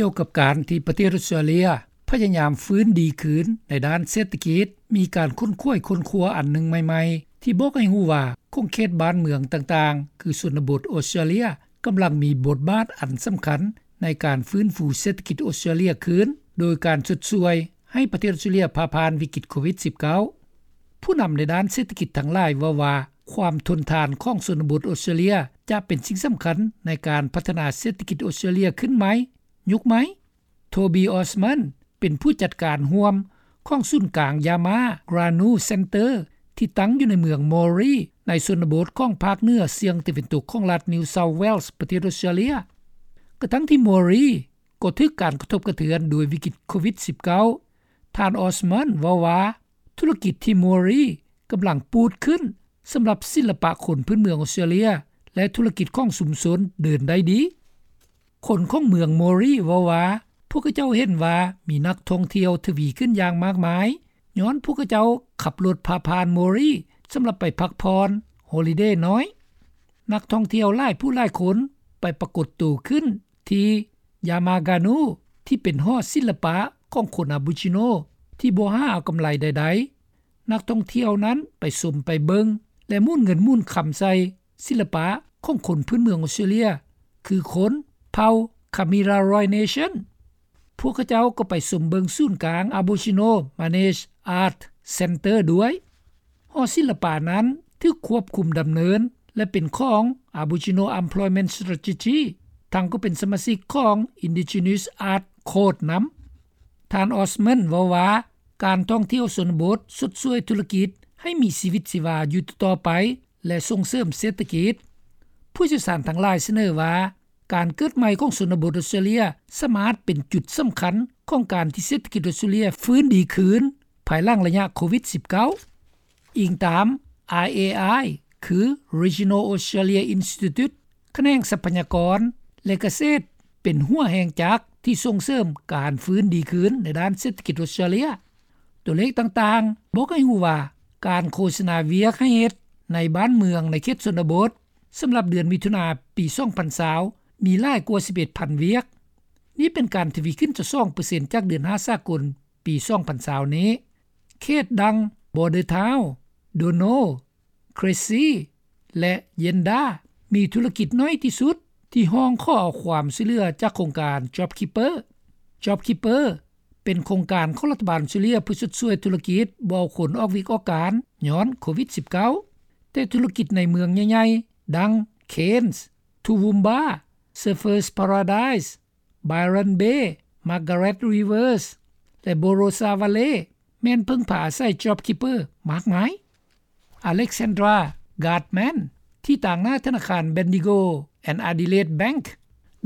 ກ່ຽວກັບການທີ່ປະເທດອອສເຕຣເລັຍ ພະຍາຍາມຟື້ນດີຄືນໃນດ້ານເສດຖະກິດ, ມີການຄົ້ນຄວ້າຄົ້ນຄວ້າອັນໜຶ່ງໃໝ່ໆ ທີ່ບອກໃຫ້ຮູ້ວ່າ ຂົງເຂດບ້ານເມືອງຕ່າງໆ ຄືຊົນນະບົດອອສເຕຣເລັຍ ກຳລັງມີບົດບາດອັນສຳຄັນ ໃນການຟື້ນຟູເສດຖະກິດອອສເຕຣເລັຍຄືນ ໂດຍການຊົດຊ່ວຍໃຫ້ປະເທດອອສເຕຣເລັຍຜ່າຜ່ານວິກິດໂຄວິດ-19. ຜູ້ນຳໃນດ້ານເສດຖະກິດທັງຫຼາຍເວົ້າວ່າ ຄວາມທົນທານຂອງຊົນນະບົດອອສເຕຣເລັຍ ຈະເປັນສິ່ງສຳຄັນໃນການພັດທະນາເສດຖະກິດອອສເຕຣເລັຍຂຶ້ນໃໝ່, ຍຸກໃໝ່. ໂທບີ ອອສມັນ ເປັນຜູ້ຈັດການຮ່ວມຂອງສູນກາງ Yama Ganu Center ທີ່ຕັ້ງຢູ່ໃນເມືອງ Moree ໃນຊົນນະບົດຂອງພາກເໜືອສ່ຽງຕາເວັນຕົກຂອງລັດ New South Wales ປະເທດອອສເຕຣເລັຍ. ກະທັງທີ່ Moree ກໍຖືກການກະທົບກະເທືອນໂດຍວິກິດໂຄວິດ-19, ທ່ານ ອອສມັນ ເວົ້າວ່າ ທຸລະກິດທີ່ Moree ກຳລັງປູດຂຶ້ນສຳລັບສິລະປະຄົນພື້ນເມືອງອອສເຕຣເລັຍ ແລະ ທຸລະກິດຂອງຊຸມຊົນເດີນໄດ້ດີ. ຄົນຂອງເມືອງ Moree ເວົ້າວ່າ ພວກເຂົາເຈົ້າເຫັນວ່າມີນັກທ່ອງທ່ຽວທະວີຂຶ້ນຢ່າງມາກມາຍ ຍ້ອນພວກເຂົາເຈົ້າຂັບລົດຜ່າຜ່ານ Moree ສຳລັບໄປພັກຜ່ອນ Holiday ນ້ອຍ. ນັກທ່ອງທ່ຽວຫຼາຍຜູ້ຫຼາຍຄົນໄປປາກົດໂຕຂຶ້ນທີ່ Yama Ganu ທີ່ເປັນຫໍສິລະປະຂອງຄົນ Aboriginal ທີ່ບໍ່ຫາເອົາກຳໄລໃດໆ. ນັກທ່ອງທ່ຽວນັ້ນໄປຊົມໄປເບິ່ງ ແລະ ໝູນເງິນໝູນຄຳໃສ່ສິລະປະຂອງຄົນພື້ນເມືອງອອສເຕຣເລັຍ ຄືຄົນເຜົ່າ Kamilaroi Nation. ພວກເຂົາເຈົ້າກໍໄປຊົມເບິ່ງສູນກາງ Aboriginal Managed Art Center ດ້ວຍ. ຫໍສິລະປະນັ້ນຖືກຄວບຄຸມດຳເນີນ ແລະ ເປັນຂອງ Aboriginal Employment Strategy ທັງກໍເປັນສະມາຊິກຂອງ Indigenous Art Code ນຳ. ທ່ານ ອອສມັນ ເວົ້າວ່າ ການທ່ອງທ່ຽວຊົນນະບົດຊົດຊ່ວຍທຸລະກິດໃຫ້ມີຊີວິດຊີວາຢູ່ຕໍ່ໆໄປ ແລະ ສົ່ງເສີມເສດຖະກິດ. ຜູ້ຊ່ຽວຊານທັງຫຼາຍສະເໜີວ່າ ການເກີດໃໝ່ຂອງຊົນນະບົດອອສເຕຣເລັຍ ສາມາດເປັນຈຸດສຳຄັນຂອງການທີ່ເສດຖະກິດອອສເຕຣເລັຍຟື້ນດີຄືນ ພາຍຫຼັງໄລຍະໂຄວິດ-19. ອີງຕາມ RAI ຄື Regional Australia Institute ຂະແໜງຊັບພະຍາກອນ ແລະ ກະເສດ ເປັນຫົວແຮງຈັກທີ່ສົ່ງເສີມການຟື້ນດີຄືນໃນດ້ານເສດຖະກິດອອສເຕຣເລັຍ. ຕົວເລກຕ່າງໆບອກໃຫ້ຮູ້ວ່າ ການໂຄສະນາວຽກໃຫ້ເຮັດໃນບ້ານເມືອງໃນເຂດຊົນນະບົດ ສຳລັບເດືອນມິຖຸນາປີສອງພັນຊາວ ມີຫຼາຍກວ່າສິບເອັດພັນວຽກ. ນີ້ເປັນການທະວີຂຶ້ນຊາວສອງເປີເຊັນ ຈາກເດືອນຫ້າສາກົນປີສອງພັນຊາວນີ້. ເຂດດັ່ງ Bordertown, Dono, Cressy ແລະ Yenda ມີທຸລະກິດໜ້ອຍທີ່ສຸດທີ່ຮ້ອງຂໍເອົາຄວາມຊ່ວຍເຫຼືອຈາກໂຄງການ JobKeeper. JobKeeper ເປັນໂຄງການຂອງລັດຖະບານອອສເຕຣເລັຍເພື່ອຊົດຊ່ວຍທຸລະກິດບໍ່ເອົາຄົນອອກວຽກອອກການຍ້ອນໂຄວິດ-19. ແຕ່ທຸລະກິດໃນເມືອງໃຫຍ່ໆ ດັ່ງ Cairns, Toowoomba, Surfers Paradise, Byron Bay, Margaret River ແລະ Barossa Valley ແມ່ນເພິ່ງພາອາໄສ JobKeeper ມາກມາຍ. Alexandra Gardman ທີ່ຕາງໜ້າທະນາຄານ Bendigo and Adelaide Bank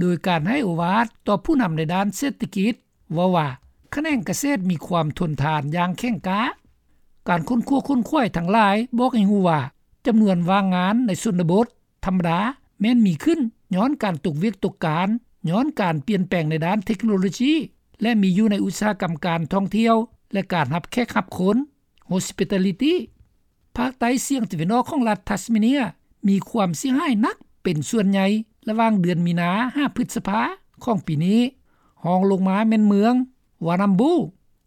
ໂດຍການໃຫ້ໂອວາດຕໍ່ຜູ້ນຳໃນດ້ານເສດຖະກິດ ເວົ້າວ່າ ຂະແໜງກະເສດມີຄວາມທົນທານຢ່າງແຂງກ້າ. ການຄົ້ນຄວ້າຄົ້ນຂວາຍທັງຫຼາຍບອກໃຫ້ຮູ້ວ່າ ຈຳນວນວ່າງງານໃນຊົນນະບົດ ທຳມະດາແມ່ນມີຂຶ້ນຍ້ອນການຕົກວຽກຕົກການ, ຍ້ອນການປ່ຽນແປງໃນດ້ານເທັກໂນໂລຊີ ແລະ ມີຢູ່ໃນອຸດສາຫະກຳການທ່ອງທ່ຽວ ແລະ ການຮັບແຂກຮັບຄົນ Hospitality. ພາກໃຕ້ສ່ຽງຕາເວັນອອກຂອງລັດ Tasmania ມີຄວາມເສຍຫາຍໜັກເປັນສ່ວນໃຫຍ່ລະຫວ່າງເດືອນມີນາຫາພຶດສະພາຂອງປີນີ້, ຮອງລົງມາແມ່ນເມືອງ Warrnambool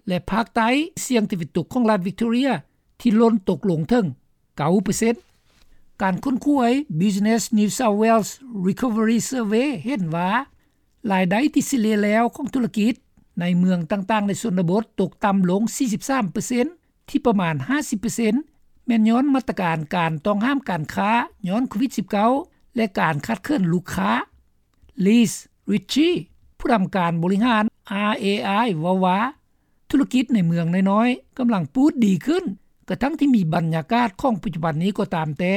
ແລະ ພາກໃຕ້ສ່ຽງຕາເວັນຕົກຂອງລັດ Victoria ທີ່ຫຼົ່ນຕົກລົງເຖິງ ເກົ້າເປີເຊັນ. ການຄົ້ນຄວ້າ Business New South Wales Recovery Survey ເຫັນວ່າ ລາຍໄດ້ທີ່ສະເລ່ຍແລ້ວຂອງທຸລະກິດໃນເມືອງຕ່າງໆໃນຊົນນະບົດຕົກຕ່ຳລົງສີ່ສິບສາມເປີເຊັນ ທີ່ປະມານຫ້າສິບເປີເຊັນ ແມ່ນຍ້ອນມາດຕະການການຕ້ອງຫ້າມການຄ້າຍ້ອນໂຄວິດ-19 ແລະ ການຂາດເຂີນລູກຄ້າ. Liz Ritchie ຜູ້ນຳການບໍລິຫານ RAI ເວົ້າວ່າ ທຸລະກິດໃນເມືອງນ້ອຍໆກຳລັງປູດດີຂຶ້ນ ກະທັງທີ່ມີບັນຍາກາດຂອງປັດຈຸບັນນີ້ກໍຕາມແຕ່.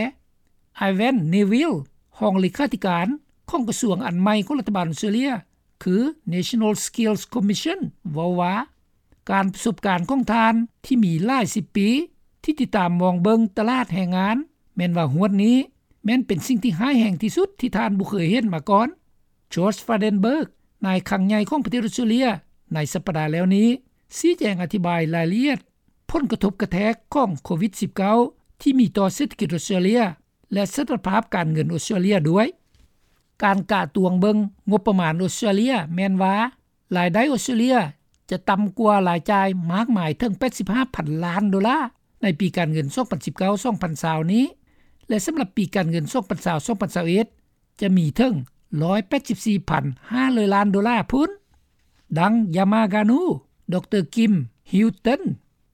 Ivan Neville ຮອງເລຂາທິການຂອງກະຊວງອັນໃໝ່ຂອງລັດຖະບານອອສເຕຣເລັຍ ຄື National Skills Commission ເວົ້າວ່າ ການປະສົບການຂອງທ່ານທີ່ມີຫຼາຍສິບປີ ທີ່ຕິດຕາມມອງເບິ່ງຕະຫຼາດແຮງງານ ແມ່ນວ່າຮວດນີ້ ແມ່ນເປັນສິ່ງທີ່ຮ້າຍແຮງທີ່ສຸດທີ່ທ່ານບໍ່ເຄີຍເຫັນມາກ່ອນ. Josh Frydenberg ນາຍຄັງໃຫຍ່ຂອງປະເທດອອສເຕຣເລັຍ ໃນສັບປະດາແລ້ວນີ້ ຊີ້ແຈງອະທິບາຍລາຍລະອຽດຜົນກະທົບກະແທກຂອງໂຄວິດ-19 ທີ່ມີຕໍ່ເສດຖະກິດອອສເຕຣເລັຍ ແລະ ສະຖານະພາບການເງິນອອສເຕຣເລັຍດ້ວຍ. ການກະຕວງເບິ່ງງົບປະມານອອສເຕຣເລັຍແມ່ນວ່າ ລາຍໄດ້ອອສເຕຣເລັຽ ຈະຕ່ຳກວ່າລາຍຈ່າຍ ມາກມາຍເຖິງ 85,000 ລ້ານໂດລາ ໃນປີການເງິນ 2019-2020 ນີ້ ແລະສຳລັບປີການເງິນ 2020-2021 ຈະມີເຖິງ 184,500 ລ້ານໂດລາພຸ້ນ. ດັ່ງ Yamagano ດຣ Kim Hilton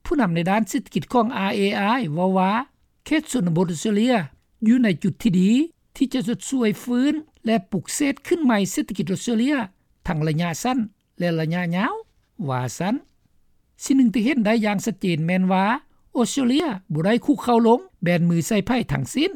ຜູ້ນຳໃນດ້ານເສດຖະກິດຂອງ RAI ເວົ້າວ່າ ເຂດຊົນນະບົດອອສເຕຣເລັຽ ຢູ່ໃນຈຸດທີ່ດີ ທີ່ຈະຊົດຊ່ວຍຟື້ນ ແລະປຸກເສກຂຶ້ນໃໝ່ເສດຖະກິດອອສເຕຣເລັຽ ທັງລະຍະສັ້ນ ແລະລະຍະຍາວ ວ່າຊັ້ນ. ສິ່ງໜຶ່ງທີ່ເຫັນໄດ້ຢ່າງຊັດເຈນແມ່ນວ່າ ອອສເຕຣເລັຽ ບໍ່ໄດ້ຄຸກເຂົ່າລົງ ແບມືໃສ່ໃຜທັງສິ້ນ